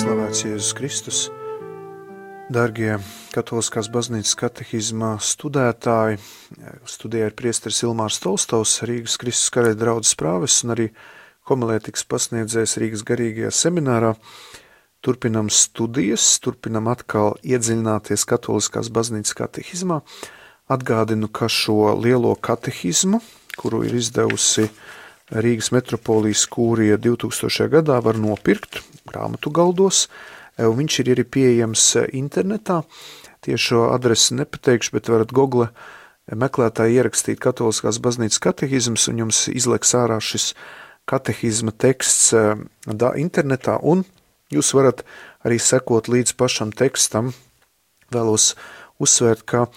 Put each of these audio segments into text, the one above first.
Slavēts Jēzus Kristus, dargie Katoliskās baznīcas katehizma studētāji, studijā ir priesteris Ilmārs Tolstovs, Rīgas Kristus karaļa draudzes prāvests un arī homilētikas pasniedzējs Rīgas garīgajā seminārā. Turpinam studijas, turpinam atkal iedziļināties Katoliskās baznīcas katehizmā. Atgādinu, ka šo lielo katehizmu, kuru ir izdevusi Rīgas metropolijas kūrija 2000. gadā, var nopirkt grāmatu galdos, un viņš ir arī pieejams internetā. Tiešo adresi nepateikšu, bet varat Google meklētāji ierakstīt Katoliskās baznīcas katehizms, un jums izleks ārā šis katehizma teksts internetā, un jūs varat arī sekot līdz pašam tekstam. Vēlos uzsvērt, ka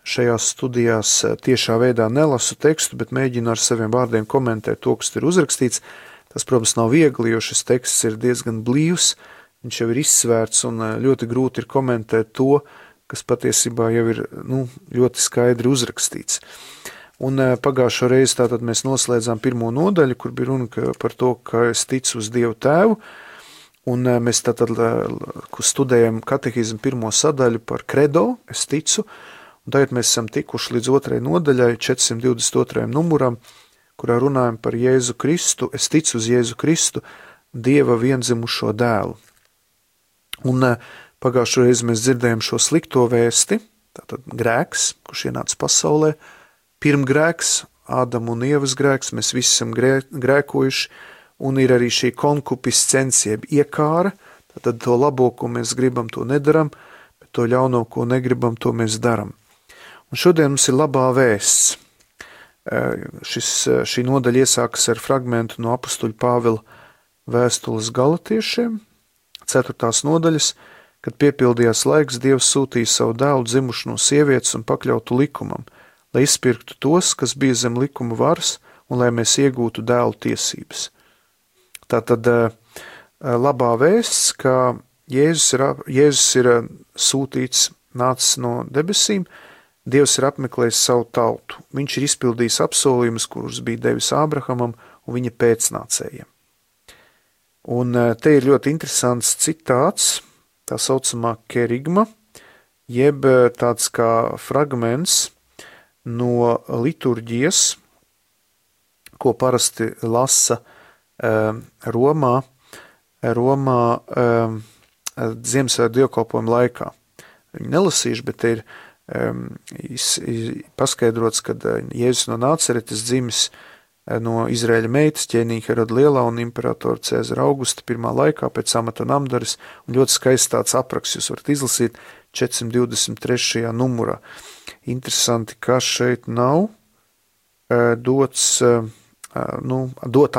šajās studijās tiešā veidā nelasu tekstu, bet mēģinu ar saviem vārdiem komentēt to, kas ir uzrakstīts. Tas, protams, nav viegli, jo šis teksts ir diezgan blīvs, viņš jau ir izsvērts un ļoti grūti ir komentēt to, kas patiesībā jau ir ļoti skaidri uzrakstīts. Un pagājušo reizi tātad mēs noslēdzām pirmo nodaļu, kur bija runa par to, ka es ticu uz Dievu Tēvu, un mēs tātad studējam katehizmu pirmo sadaļu par kredo, es ticu, un tagad mēs esam tikuši līdz otrai nodaļai, 422. numuram, kurā runājam par Jēzu Kristu, es ticu uz Jēzu Kristu, Dieva viendzimušo dēlu. Un pagājušo reizi mēs dzirdējam šo slikto vēsti, tātad grēks, kurš ienāca pasaulē, pirmgrēks, Ādama un Ievas grēks, mēs visi esam grēkojuši, un ir arī šī konkupiscencija, jeb iekāra, tātad to labo, ko mēs gribam, to nedaram, bet to ļauno, ko negribam, to mēs daram. Un šodien mums ir labā vēsts. Šī nodaļa iesākas ar fragmentu no apustuļa Pāvila vēstules Galatiešiem, 4. nodaļas, kad piepildījās laiks, Dievs sūtīja savu dēlu dzimušu no sievietes un pakļautu likumam, lai izpirktu tos, kas bija zem likuma varas, un lai mēs iegūtu dēlu tiesības. Tātad labā vēsts, ka Jēzus ir sūtīts, nācis no debesīm, Dievs ir apmeklējis savu tautu. Viņš ir izpildījis apsolījumus, kurus bija devis Ābrahamam un viņa pēcnācējiem. Un te ir ļoti interesants citāts, tā saucamā kerigma, jeb tāds kā fragments no liturģijas, ko parasti lasa Romā Ziemassvētku dievkalpojuma laikā. Viņi nelasījuši, bet te ir paskaidrots, ka Jēzus no Nāceretes dzimis no Izraēļa meitas ķēniņa Heroda Lielā un imperatora Cēzara Augusta pirmā laikā pēc amata namdaras, un ļoti skaists tāds apraksts, jūs varat izlasīt 423. numurā. Interesanti, ka šeit nav dot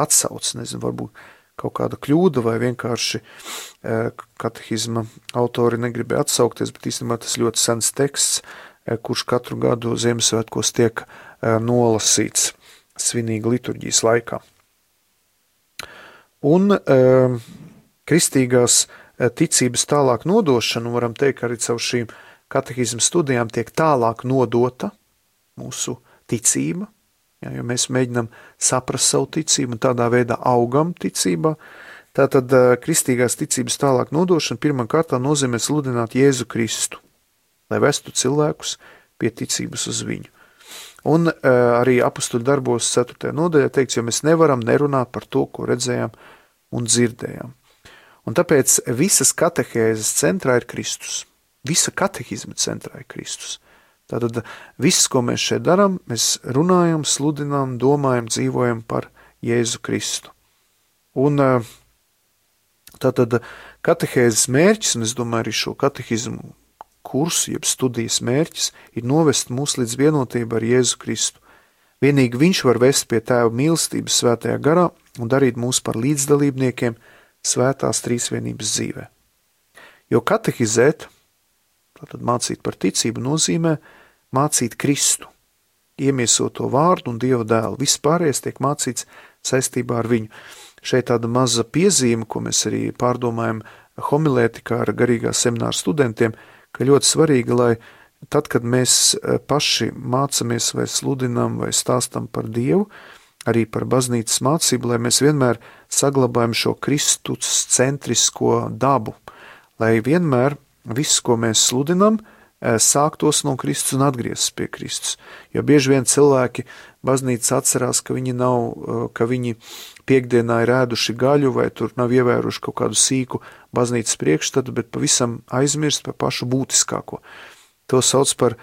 atsauc, nezinu, varbūt kaut kāda kļūda vai vienkārši katehizma autori negribēja atsaukties, bet īstenībā tas ļoti sens teksts, kurš katru gadu Ziemassvētkos tiek nolasīts svinīga liturģijas laikā. Un kristīgās ticības tālāk nodošana, varam teikt, arī caur šīm katehizma studijām tiek tālāk nodota mūsu ticība, jo mēs mēģinām saprast savu ticību un tādā veidā augam ticībā. Tātad kristīgās ticības tālāk nodošana pirmā kārtā nozīmē sludināt Jēzu Kristu, lai vestu cilvēkus pie ticības uz viņu. Un arī apustuļu darbos 4. nodaļā teikts, jo mēs nevaram nerunāt par to, ko redzējām un dzirdējām. Un tāpēc visas katehēzes centrā ir Kristus. Visa katehizma centrā ir Kristus. Tātad viss, ko mēs šeit darām, mēs runājam, sludinām, domājam, dzīvojam par Jēzu Kristu. Un tātad katehēzes mērķis, un es domāju arī šo katehizmu kursu, jeb studijas mērķis, ir novest mūs līdz vienotību ar Jēzu Kristu. Vienīgi viņš var vest pie Tēva mīlestības svētajā garā un darīt mūs par līdzdalībniekiem svētās trīsvienības dzīvē. Jo katehizēt, tātad mācīt par ticību, nozīmē mācīt Kristu, iemiesoto vārdu un Dieva dēlu. Viss pārējais tiek mācīts saistībā ar viņu. Šeit tāda maza piezīme, ko mēs arī pārdomājam homilētikā ar garīgā semināra studentiem, ka ļoti svarīgi, lai tad, kad mēs paši mācamies vai sludinām vai stāstam par Dievu, arī par baznīcas mācību, lai mēs vienmēr saglabājam šo Kristus centrisko dabu, lai vienmēr viss, ko mēs sludinam, sāktos no Kristus un atgrieztos pie Kristus. Jo bieži vien cilvēki baznīcas atcerās, ka viņi piekdienā ir ēduši gaļu vai tur nav ievēruši kaut kādu sīku baznīcas priekšstatu, bet pavisam aizmirst par pašu būtiskāko. To sauc par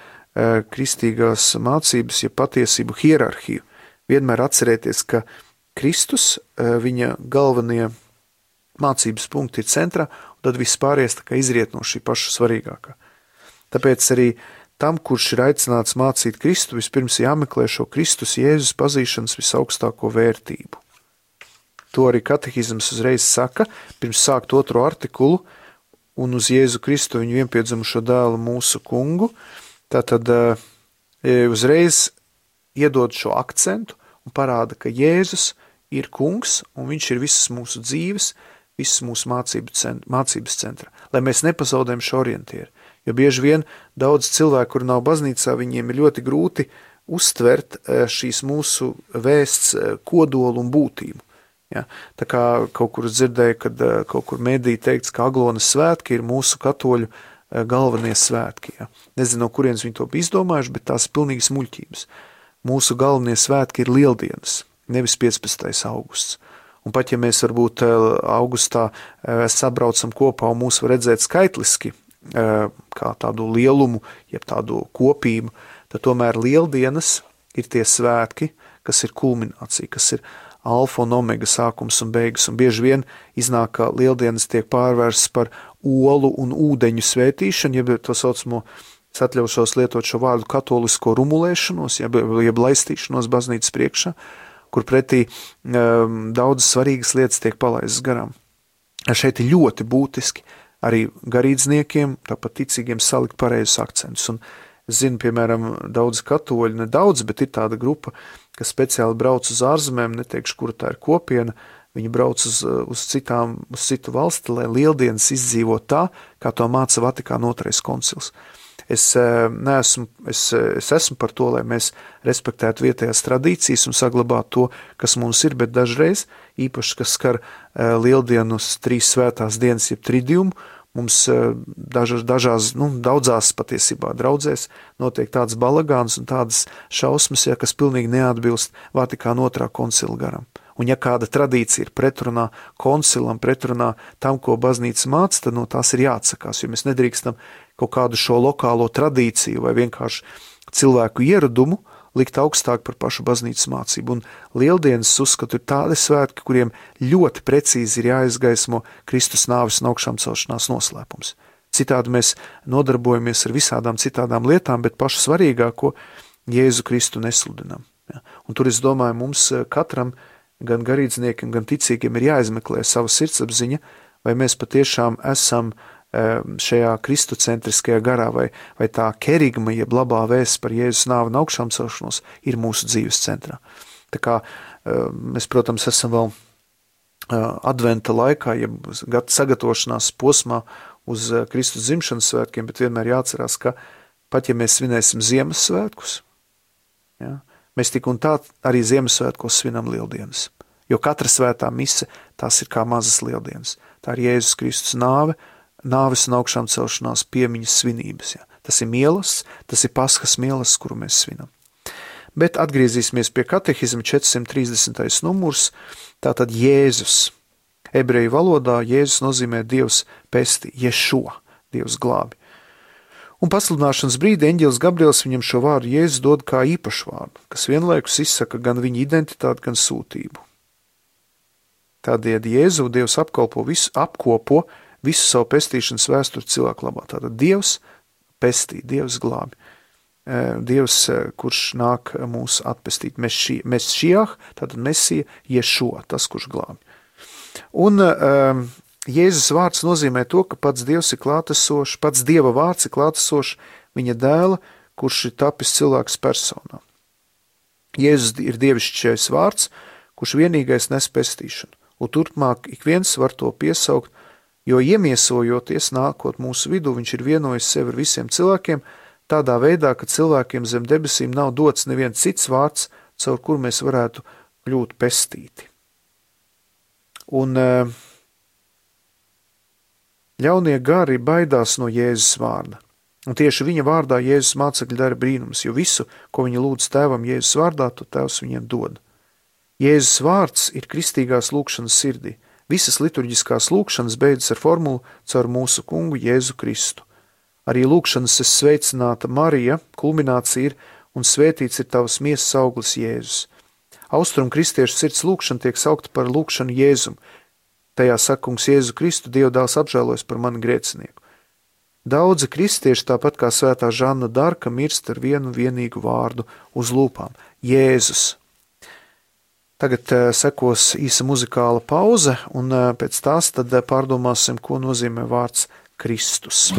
kristīgās mācības, ja patiesību hierarhiju. Vienmēr atcerēties, ka Kristus, viņa galvenie mācības punkti ir centrā, un tad viss pārējais tā kā izriet no šī paša svarīgākā. Tāpēc arī tam, kurš ir aicināts mācīt Kristu, vispirms jāmeklē šo Kristus Jēzus pazīšanas visaugstāko vērtību. To arī katehizms uzreiz saka, pirms sākt 2. artikulu, un uz Jēzu Kristu viņu vienpiedzimušo dēlu mūsu kungu, tātad uzreiz iedod šo akcentu un parāda, ka Jēzus ir kungs, un viņš ir visas mūsu dzīves, visas mūsu mācības centra, lai mēs nepazaudējam šo orientieru. Jo bieži vien daudz cilvēku, kur nav baznīcā, viņiem ir ļoti grūti uztvert šīs mūsu vēsts kodolu un būtību. Ja? Tā kā kaut kur dzirdēju, kad kaut kur medī teikts, ka Aglonas svētki ir mūsu katoļu galvenie svētki. Ja? Nezinu, no kurienes viņi to bija izdomājuši, bet tās ir pilnīgi smuļķības. Mūsu galvenie svētki ir Lieldienas, nevis 15. augusts. Un pat ja mēs varbūt augustā sabraucam kopā un mūs var redzēt skaitliski, kā tādu lielumu, jeb tādu kopību, tad tomēr Lieldienas ir tie svētki, kas ir kulminācija, kas ir alfa un omega sākums un beigas, un bieži vien iznāk, ka Lieldienas tiek pārvērsts par olu un ūdeņu svētīšanu, jeb to saucamo, es atļaušos lietot šo vārdu katolisko rumulēšanos, jeb laistīšanos baznīcas priekšā, kur pretī daudz svarīgas lietas tiek palaistas garām. Šeit ir ļoti būtiski arī garīdzniekiem, tāpat ticīgiem salikt pareizus akcentus. Un es zinu, piemēram, daudz katoļu, ne daudz, bet ir tāda grupa, kas speciāli brauc uz ārzemēm, neteikšu, kura tā ir kopiena, viņi brauc uz citu valsti, lai Lieldienas izdzīvo tā, kā to māca Vatikāna 2. koncils. Es esmu par to, lai mēs respektētu vietējās tradīcijas un saglabātu to, kas mums ir, bet dažreiz, īpaši, kas skar Lieldienas 3 svētās dienas, jeb tridiumu, mums daudzās patiesībā draudzēs notiek tāds balagāns un tādas šausmas, ja, kas pilnīgi neatbilst Vatikāna 2. koncila garam. Un ja kāda tradīcija ir pretrunā koncilam, pretrunā tam, ko baznīca māca, tad no tās ir jāatsakās, jo mēs nedrīkstam kaut kādu šo lokālo tradīciju vai vienkārši cilvēku ieradumu likt augstāk par pašu baznīcas mācību. Un Lieldienas uzskatu ir tādi svētki, kuriem ļoti precīzi ir jāizgaismo Kristus nāves un augšām celšanās noslēpums. Citādi mēs nodarbojamies ar visādām citādām lietām, bet pašu svarīgāko Jēzu Kristu nesludinam. Ja? Un tur es domāju, mums katram, gan garīdzniekiem, gan ticīgiem ir jāizmeklē sava sirdsapziņa, vai mēs patiešām esam šajā kristocentriskajā garā, vai tā kerigma, jeb labā vēsts par Jēzus nāvi un augšām celšanos ir mūsu dzīves centrā. Tā kā mēs, protams, esam vēl adventa laikā, jeb sagatavošanās posmā uz Kristus dzimšanas svētkiem, bet vienmēr jāatcerās, ka pat ja mēs svinēsim Ziemassvētkus, ja, mēs tik un tā arī Ziemassvētkos svinam Lieldienas. Jo katra svētā mise, tās ir kā mazas Lieldienas. Tā ir Jēzus Kristus nāves un augšām celšanās piemiņas svinības. Ja. Tas ir mielas, tas ir Paskas mielas, kuru mēs svinam. Bet atgriezīsimies pie katehizma 430. numurs, tātad Jēzus. Ebreju valodā Jēzus nozīmē Dievs pesti, Ješua, Dievs glābi. Un pasludināšanas brīdī eņģelis Gabriels viņam šo vārdu Jēzus dod kā īpašu vārdu, kas vienlaikus izsaka gan viņa identitāti, gan sūtību. Tādēļ Jēzu Dievs apkopo visu savu pestīšanas vēsturi cilvēku labā. Tātad Dievs pestī, Dievs glābi. Dievs, kurš nāk mūs atpestīt. Mesšijah, tātad Mesija, Ješua, tas, kurš glābi. Un Jēzus vārds nozīmē to, ka pats Dievs ir klātesošs, pats Dieva vārds ir klātesošs viņa dēla, kurš ir tapis cilvēks personā. Jēzus ir dievišķais vārds, kurš vienīgais nes pestīšanu. Un turpmāk ik viens var to piesaukt, jo iemiesojoties nākot mūsu vidū, viņš ir vienojis sevi ar visiem cilvēkiem, tādā veidā, ka cilvēkiem zem debesīm nav dots neviens cits vārds, caur kur mēs varētu kļūt pestīti. Un Ļaunie gari baidās no Jēzus vārda. Un tieši viņa vārdā Jēzus mācekļi dara brīnums, jo visu, ko viņi lūdz tēvam Jēzus vārdā, to tēvs viņiem dod. Jēzus vārds ir kristīgās lūkšanas sirdī. Visas liturģiskās lūkšanas beidzas ar formulu caur mūsu kungu Jēzu Kristu. Arī lūkšanas es sveicināta Marija, kulminācija ir un svētīts ir tavas miesas auglis Jēzus. Austrum kristiešu sirds lūkšana tiek saukta par lūkšanu Jēzum. Tajā saka kungs Jēzu Kristu, Dieva dēls apžēlojas par mani grēcinieku. Daudzi kristieši, tāpat kā svētā Žanna Darka, mirst ar vienu vienīgu vārdu uz lūpām – Jēzus. Tagad sekos īsa muzikāla pauze, un pēc tās tad pārdomāsim, ko nozīmē vārds Kristus.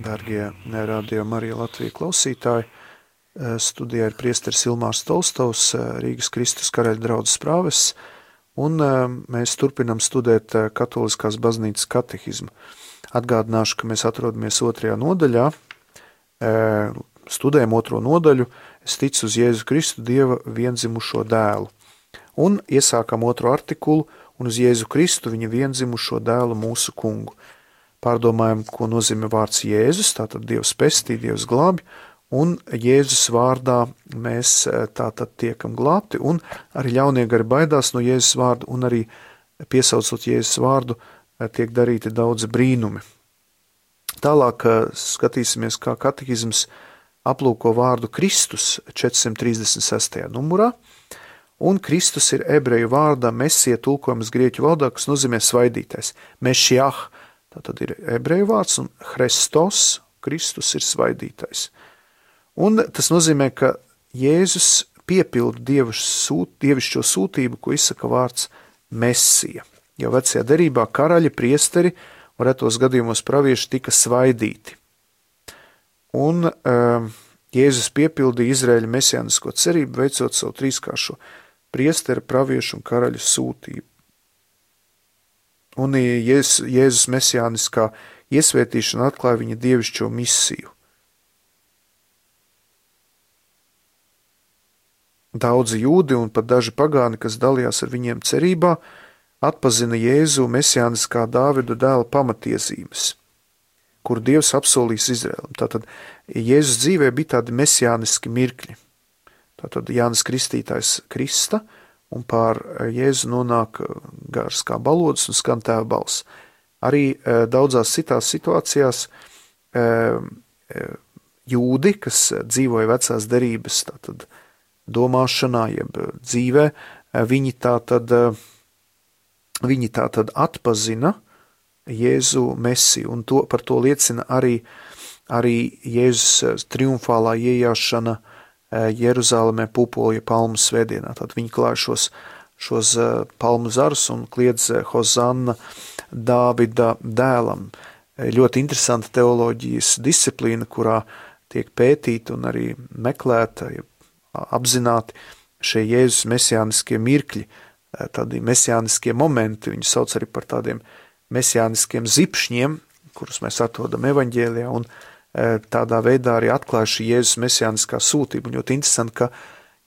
Dargie Radio Marija Latvija klausītāji, studijā ir priesteris Ilmārs Tolstovs, Rīgas Kristus karaļa draudzes prāvests, un mēs turpinam studēt Katoliskās baznīcas katehizmu. Atgādināšu, ka mēs atrodamies 2. nodaļā, studējam 2. nodaļu, es ticu uz Jēzu Kristu, Dieva vienzimušo dēlu. Un iesākam 2. artikulu, un uz Jēzu Kristu, viņa vienzimušo dēlu mūsu kungu. Pārdomājam, ko nozīmē vārds Jēzus, tātad Dievs pestī, Dievs glābi, un Jēzus vārdā mēs tātad tiekam glābti, un arī ļaunie gari baidās no Jēzus vārdu, un arī piesaucot Jēzus vārdu, tiek darīti daudzi brīnumi. Tālāk skatīsimies, kā katehizms aplūko vārdu Kristus 436. numurā, un Kristus ir ebreju vārdā mesija tulkojums grieķu valodā, kas nozīmē svaidītais. Mešiah, tātad ir ebreju vārds, un Hristos, Kristus ir svaidītais. Un tas nozīmē, ka Jēzus piepilda dievišķo sūtību, ko izsaka vārds mesija. Jau vecajā derībā karaļi, priesteri un retos gadījumos pravieši tika svaidīti. Un Jēzus piepildīja Izraēļa mesijānisko cerību, veicot savu trīskāršo priestera, praviešu un karaļu sūtību. Un Jēzus mesijāniskā iesvētīšana atklāja viņa dievišķo misiju. Daudzi jūdi un pat daži pagāni, kas dalījās ar viņiem cerībā, atpazina Jēzu mesijāniskā Dāvida dēla pamatiesības, kur Dievs apsolīs Izraēlam. Tātad Jēzus dzīvē bija tādi mesijāniski mirkļi. Tātad Jānis Kristītājs krista, un pār Jēzu nonāk gars kā balodas un skan tēva balss. Arī daudzās citās situācijās jūdi, kas dzīvoja vecās derības, tātad domāšanā, jeb dzīvē, viņi tātad atpazina Jēzu mesiju, un par to liecina arī Jēzus triumfālā iejāšana Jeruzālemē pupolja palmu svētdienā. Tad viņi klāja šos palmu zarus un kliedz Hozanna Dāvida dēlam. Ļoti interesanta teoloģijas disciplīna, kurā tiek pētīta un arī meklēta, apzināti šie Jēzus mesijāniskie mirkļi, tādi mesijāniskie momenti, viņi sauc arī par tādiem mesijāniskiem zipšņiem, kurus mēs atrodam evaņģēlijā, un tādā veidā arī atklāja šī Jēzus mesijāniskā sūtība. Un ļoti interesanti, ka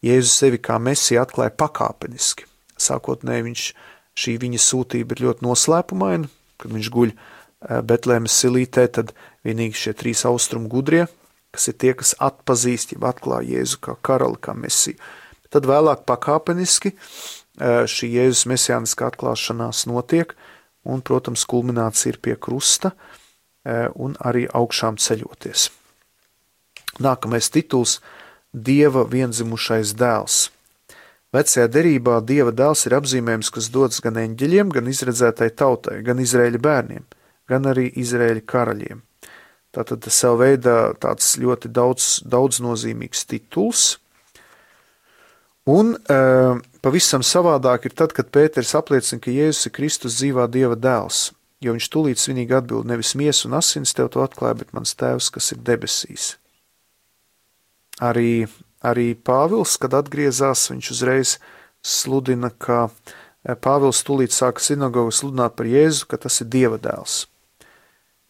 Jēzus sevi kā mesija atklāja pakāpeniski. Sākotnēji šī viņa sūtība ir ļoti noslēpumaina, kad viņš guļ Betlēmes silītē, tad vienīgi šie 3 austrumu gudrie, kas ir tie, kas atpazīst, ja atklāja Jēzu kā karali, kā mesiju. Tad vēlāk pakāpeniski šī Jēzus mesijāniskā atklāšanās notiek, un, protams, kulminācija ir pie krusta un arī augšām ceļoties. Nākamais tituls – Dieva vienzimušais dēls. Vecajā derībā Dieva dēls ir apzīmējums, kas dots gan eņģeļiem, gan izredzētai tautai, gan Izraēļa bērniem, gan arī Izraēļa karaļiem. Tātad tas savu veidā tāds ļoti daudznozīmīgs tituls. Un pavisam savādāk ir tad, kad Pēters apliecina, ka Jēzus ir Kristus dzīvā Dieva dēls, jo viņš tūlīt svinīgi atbild, nevis miesa un asins tev to atklāja, bet mans tēvs, kas ir debesīs. Arī Pāvils, kad atgriezās, viņš uzreiz sludina, ka Pāvils tūlīt sāka sinagogu sludināt par Jēzu, ka tas ir Dieva dēls.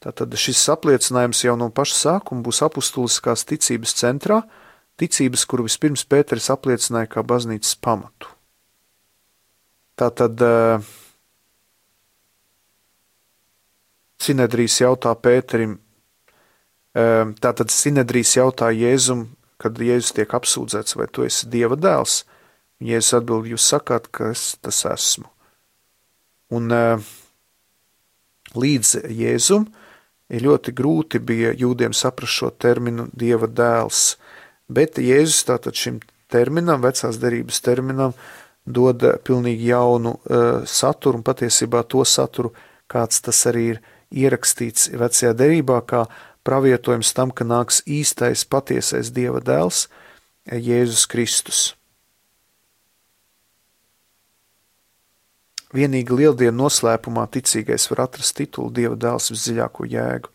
Tātad šis apliecinājums jau no paša sākuma būs apustuliskās ticības centrā, ticības, kuru vispirms Pēteris apliecināja kā baznīcas pamatu. Tātad Sinedrijs jautā Pēterim, tātad Sinedrijs jautā Jēzum, kad Jēzus tiek apsūdzēts, vai tu esi Dieva dēls? Jēzus atbild, jūs sakāt, ka es tas esmu. Un līdz Jēzum ir ļoti grūti bija jūdiem saprast šo terminu Dieva dēls, bet Jēzus tātad šim terminam, vecās derības terminam, dod pilnīgi jaunu saturu un patiesībā to saturu, kāds tas arī ir ierakstīts vecajā derībā, kā pravietojums tam, ka nāks īstais, patiesais Dieva dēls, Jēzus Kristus. Vienīgi lieldienu noslēpumā ticīgais var atrast titulu Dieva dēls visdziļāko jēgu.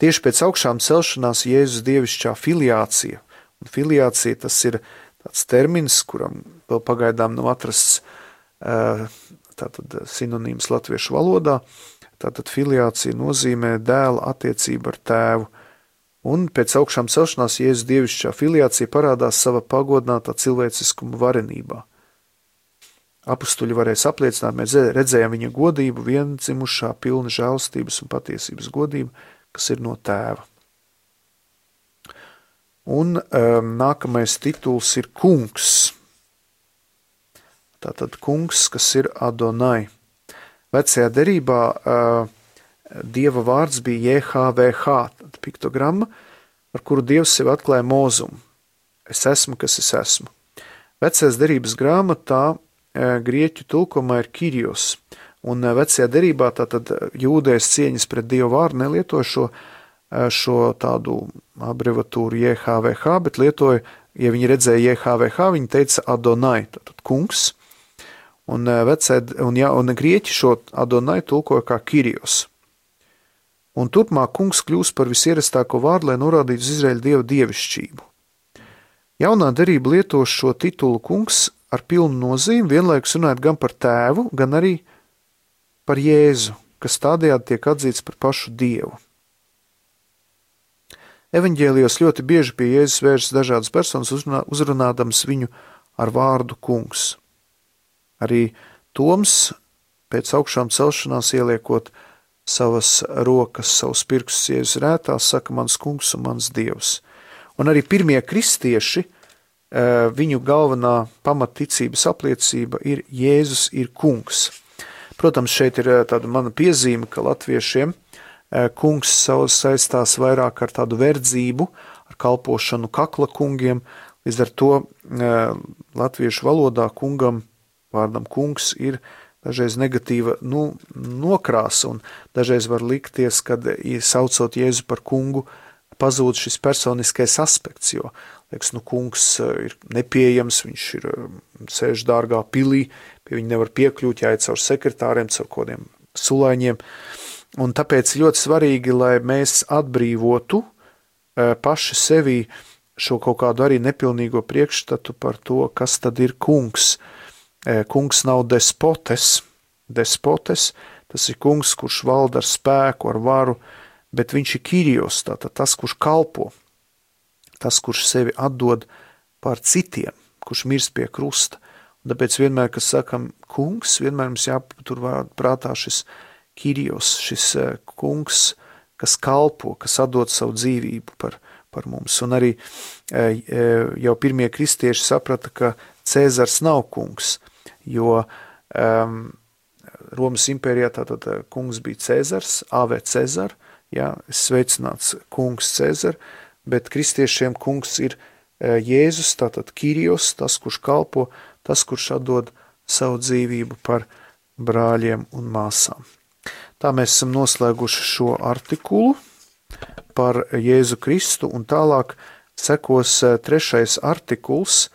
Tieši pēc augšām celšanās Jēzus dievišķā filiācija, un filiācija tas ir tāds termins, kuram vēl pagaidām nav atrasts tātad sinonīms latviešu valodā, tātad filiācija nozīmē dēla attiecību ar tēvu. Un pēc augšām celšanās Jēzus dievišķā filiācija parādās sava pagodinātā cilvēciskuma varenībā. Apustuļi varēs apliecināt, mēs redzējām viņa godību, viendzimušā, pilna žēlstības un patiesības godību, kas ir no tēva. Un nākamais tituls ir kungs. Tātad kungs, kas ir Adonai. Vecajā derībā Dieva vārds bija JHVH, piktogramma, ar kuru Dievs sevi atklāja Mozumu. Es esmu, kas es esmu. Vecajās derības grāmatā grieķu tulkumā ir Kyrios, un vecajā derībā tātad jūdējas cieņas pret Dievu vārdu nelietoja šo tādu abrevatūru JHVH, bet lietoja, ja viņi redzēja JHVH, viņi teica Adonai, tātad kungs, un grieķi šo Adonai tulkoja kā Kyrios. Un turpmāk kungs kļūst par visierastāko vārdu, lai norādītu uz Izraēļa Dieva dievišķību. Jaunā derība lieto šo titulu kungs ar pilnu nozīmi, vienlaikus runājot gan par tēvu, gan arī par Jēzu, kas tādējādi tiek atzīts par pašu Dievu. Evaņģēlijos ļoti bieži pie Jēzus vēršas dažādas personas, uzrunādams viņu ar vārdu kungs. Arī Toms pēc augšām celšanās ieliekot savas rokas, savus pirkstus Jēzus rētās, saka mans kungs un mans Dievs. Un arī pirmie kristieši, viņu galvenā pamatticības apliecība ir Jēzus ir kungs. Protams, šeit ir tāda mana piezīme, ka latviešiem kungs saistās vairāk ar tādu verdzību, ar kalpošanu kakla kungiem, līdz ar to latviešu valodā kungam, vārdam kungs ir dažreiz negatīva nokrāsa, un dažreiz var likties, kad saucot Jēzu par kungu, pazūd šis personiskais aspekts, jo, liekas, kungs ir nepieejams, viņš ir sēž dārgā pilī, pie viņa nevar piekļūt, jāiet caur sekretāriem, caur kodiem sulaiņiem, un tāpēc ļoti svarīgi, lai mēs atbrīvotu paši sevī šo kaut kādu arī nepilnīgo priekšstatu par to, kas tad ir kungs. Kungs nav despotes, tas ir kungs, kurš valda ar spēku, ar varu, bet viņš ir Kyrios, tātad tas, kurš kalpo, tas, kurš sevi atdod par citiem, kurš mirst pie krusta. Un tāpēc vienmēr, kad sakam kungs, vienmēr mums jāpatur prātā šis Kyrios, šis kungs, kas kalpo, kas atdod savu dzīvību par mums. Un arī jau pirmie kristieši saprata, ka Cēzars nav kungs, jo Romas impērijā tātad kungs bija Cēzars, AV Cēzar, sveicināts kungs Cēzar, bet kristiešiem kungs ir Jēzus, tātad Kyrios, tas, kurš kalpo, tas, kurš atdod savu dzīvību par brāļiem un māsām. Tā mēs esam noslēguši šo artikulu par Jēzu Kristu, un tālāk sekos trešais artikuls.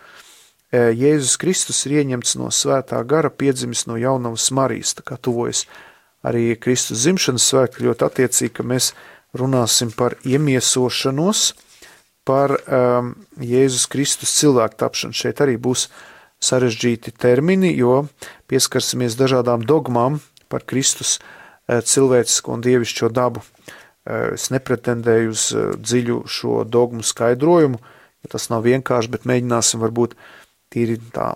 Jēzus Kristus ir ieņemts no svētā gara, piedzimis no jaunavas Marijas, tā kā tuvojas arī Kristus dzimšanas svētki, ļoti attiecīgi, ka mēs runāsim par iemiesošanos, par Jēzus Kristus cilvēku tapšanu. Šeit arī būs sarežģīti termini, jo pieskarsimies dažādām dogmām par Kristus cilvēcisko un dievišķo dabu. Es nepretendēju uz dziļu šo dogmu skaidrojumu, jo tas nav vienkārši, bet mēģināsim varbūt tīri tā,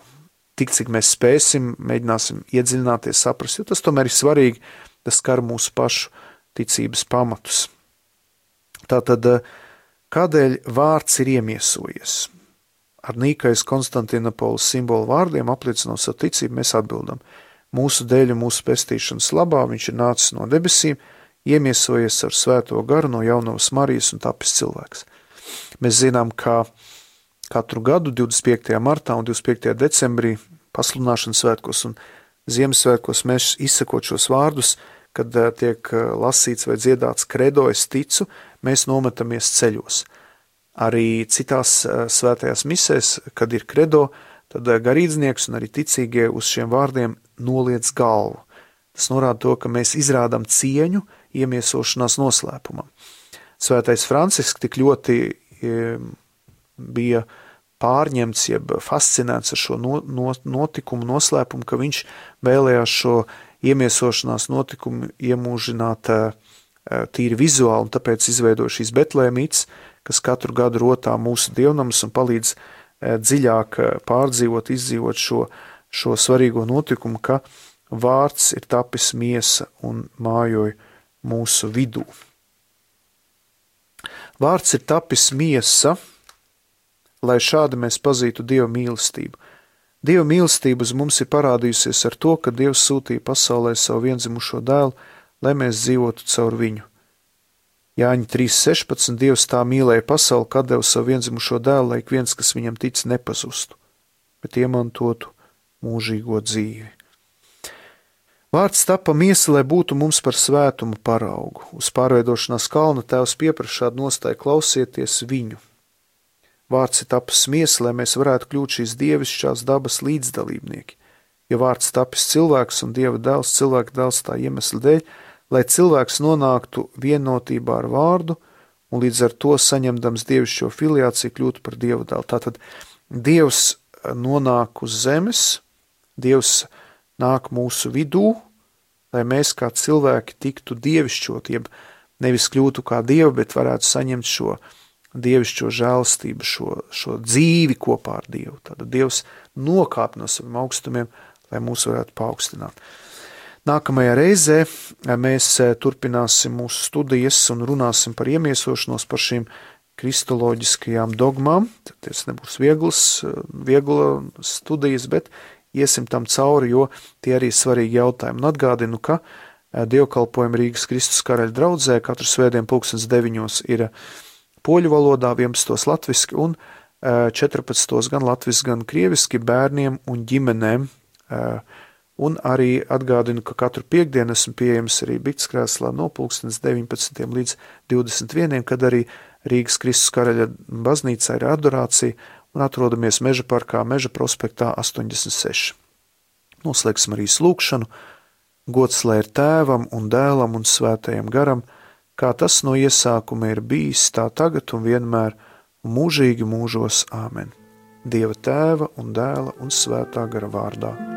tik cik mēs spēsim, mēģināsim iedziļināties, saprast, jo tas tomēr ir svarīgi, tas skar mūsu pašu ticības pamatus. Tātad, kādēļ vārds ir iemiesojies? Ar Nīkais Konstantinopolis simbolu vārdiem apliecinot savu ticību, mēs atbildam. Mūsu dēļ un mūsu pestīšanas labā viņš ir nācis no debesīm, iemiesojies ar svēto garu no jaunavas Marijas un tapis cilvēks. Mēs zinām, ka katru gadu 25. martā un 25. decembrī pasludināšanas svētkos un Ziemassvētkos mēs izsakot šos vārdus, kad tiek lasīts vai dziedāts kredo, es ticu, mēs nometamies ceļos. Arī citās svētajās misēs, kad ir kredo, tad garīdznieks un arī ticīgie uz šiem vārdiem noliec galvu. Tas norāda to, ka mēs izrādām cieņu iemiesošanās noslēpumam. Svētais Francisks tik ļoti bija pārņemts, jeb fascinēts ar šo notikumu noslēpumu, ka viņš vēlējās šo iemiesošanās notikumi iemūžināt tīri vizuāli, un tāpēc izveidoja šīs Betlēmītes, kas katru gadu rotā mūsu dievnamus un palīdz dziļāk pārdzīvot, izdzīvot šo svarīgo notikumu, ka vārds ir tapis miesa un mājoja mūsu vidū. Vārds ir tapis miesa, lai šādi mēs pazītu Dieva mīlestību. Dieva mīlestība uz mums ir parādījusies ar to, ka Dievs sūtīja pasaulē savu viendzimušo dēlu, lai mēs dzīvotu caur viņu. Jāņa 3.16. Dievs tā mīlēja pasauli, ka deva savu viendzimušo dēlu, lai ik viens, kas viņam tic, nepazustu, bet iemantotu mūžīgo dzīvi. Vārds tapa miesa, lai būtu mums par svētumu paraugu. Uz pārveidošanās kalna Tēvs pieprasa šādu nostāju: klausieties viņu. Vārds ir tapis miesa, lai mēs varētu kļūt šīs dievišķās dabas līdzdalībnieki. Ja vārds tapis cilvēks un Dieva dēls, cilvēka dēls tā iemesla dēļ, lai cilvēks nonāktu vienotībā ar vārdu un līdz ar to saņemdams dievišķo filiāciju kļūtu par Dieva dēlu. Tātad Dievs nonāk uz zemes, Dievs nāk mūsu vidū, lai mēs kā cilvēki tiktu dievišķot, jeb nevis kļūtu kā Dievi, bet varētu saņemt šo dievišķo žēlastību, šo dzīvi kopā ar Dievu. Tātad Dievs nokāp no saviem augstumiem, lai mūs varētu paaugstināt. Nākamajā reizē mēs turpināsim mūsu studijas un runāsim par iemiesošanos, par šīm kristoloģiskajām dogmām. Tas nebūs viegla studijas, bet iesim tam cauri, jo tie arī svarīgi jautājumi. Un atgādinu, ka dievkalpojumi Rīgas Kristus Karaļa draudzē katru svētdien 9:00 ir poļu valodā, 11. latviski un 14. gan latviski, gan krieviski bērniem un ģimenēm. Un arī atgādinu, ka katru piekdienu esmu pieejams arī Bitskrēslā no 19. līdz 21. kad arī Rīgas Kristus Karaļa baznīcā ir adorācija un atrodamies Meža parkā, Meža prospektā 86. Noslēgsim arī lūgšanu. Gods lai ir Tēvam un Dēlam un Svētajam garam, kā tas no iesākuma ir bijis, tā tagad un vienmēr, un mūžīgi mūžos. Āmen. Dieva Tēva un Dēla un Svētā gara vārdā.